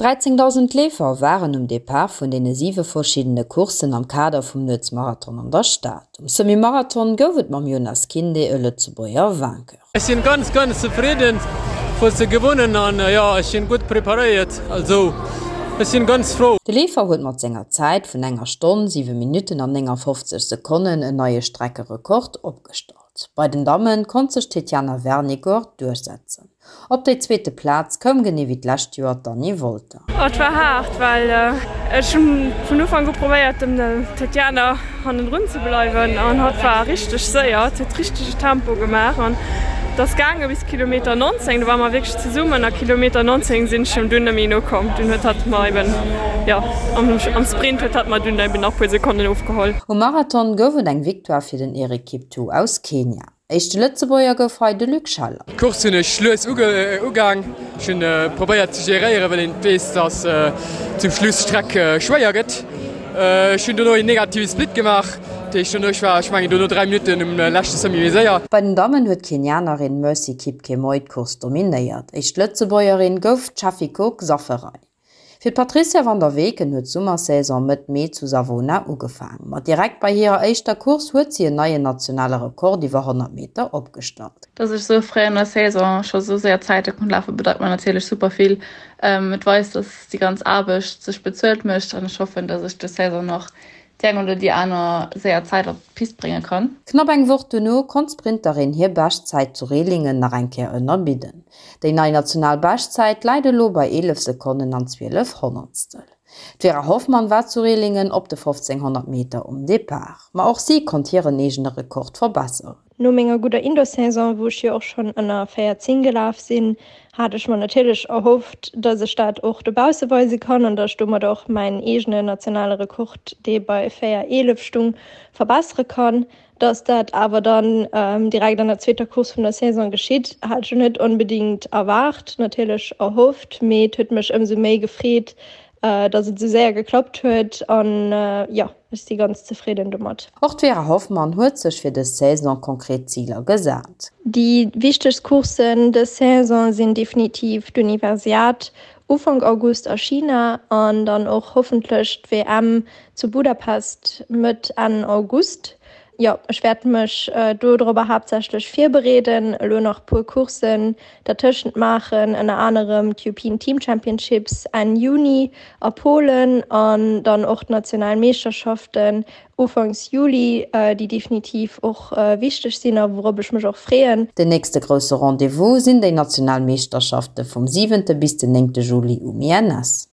13.000 Leefer waren um Depart vun deene siwe verschiddene Courssen am Kader vum Nuetsmarathon an der Stad. Um Semi-Marathon gouf et mam Yonas Kinde e Lëtzebuerger Vainqueur. Ech sinn ganz ganz zefridden fir ze gewonnen an jo ech sinn gutt preparéiert, also ech sinn ganz frou. De Leefer huet mat senger Zäit vun enger Stonn, 7 Minutten an 59 Sekonnen en neie Streckerekord opgestallt. Bei den Damme konnt sech d'Tetiana Vernigor duerchsetzen. Op déi zweete Plaz koum genee wéi d'lescht Joer d'Anny Wolter. Et war haart, well ech hunn vun Ufank u probéiert dem Tetiana hannendrun ze bleiwen an hatt war richteg séier, hatt huet richtege Tempo gemaach an et ass gaange bis Kilometer 19, do ware mer wierklech zesummen a Kilometer 19 sinn ech him dunn net méi nokomm. Dunn huet hatt mer eben, jo am Sprint huet hatt mer dunn eben nach puer Sekonnen ofgeholl. Um Marathon gouf et eng Victoire fir den Eric Kiptoo aus Kenia. Éischte Lëtzebuerger gouf hei de Luc Scheller. D'Course hunn ech lues ugaang. Ech hunn probéiert ze geréieren, well een weess, dass zum Schluss d'Streck schwéier gëtt. Ech hunn dono een negative Split gemaach, dat heescht dono, ech war, ech mengen dono 3 Minutten um leschte Semi méi séier. Bei den Dammen huet d'Kenianerin Mercy Kipkemoi d'Course dominéiert. Éischt Lëtzebuergerin gouf d'Chafiko Xaferay. Fir d'Patrizia van der Weken huet d'Summersaison Mëtt Mee zu Savona ugefaang. Ma direkt bei hirer éischter Course huet si en neien nationale Rekord iwwer 100 Meter opgestallt. Dass ech sou fréi an der Saison scho sou séier Zäite konnt lafen, bedeit mer natierlech super vill. Et weist, dass déi ganz Aarbecht sech bezuelt mécht an ech hoffen, dass ech des Saison nach déi eng oder déi aner séier Zäit op d'Pist brénge kann. Knapp eng Woch duerno konnt d'Sprinterin hir Beschtzäit zu Rehlingen nach eng Kéier ënnerbidden. Déi nei national Beschtzäit läit elo bei 11 Sekonnen an 12 Honnertstel. D'Vera Hoffmann war zu Rehlingen op de 1500 Meter um Depart, ma och si konnt hiren eegene Rekord verbesseren. No menger gudder Indoor-Saison, wou ech jo och schonn ënner 14 gelaf sinn, hat ech mer natierlech erhofft, dass ech dat och dobausse weise kann an dass ech domat och mäin eegene nationale Rekord, dee bei 4,11 stung, verbessere kann. Dass dat awer dann direkt an der zweeter Course vun der Saison geschitt, hat ech net onbedéngt erwaart, natierlech erhofft, mee et huet mech ëmsou méi gefreet, dass et esou séier geklappt huet an jo, ech si ganz zefridden domat. Och d'Vera Hoffmann huet sech fir dës Saison konkret Ziler gesat. Déi wichtegst Courssen dës Saison sinn definitiv d'Universiad Ufank August a China an dann och hoffentlech d'WM zu Budapest Mëtt, Enn August. Jo, ech wäert mech do dorobber haaptsächlech virbereeden, elo nach puer Courssen dertëschent maachen, ënner anerem d'Eupean Team Championships Enn Juni a Polen an dann och d'national Meeschterschaften Ufanks Juli, déi definitiv och wichteg sinn a wourop ech mech och freeën. Den nächste grousse Rendez-vous sinn déi national Meeschterschafte vum siwente bis den néngte Juli um INS.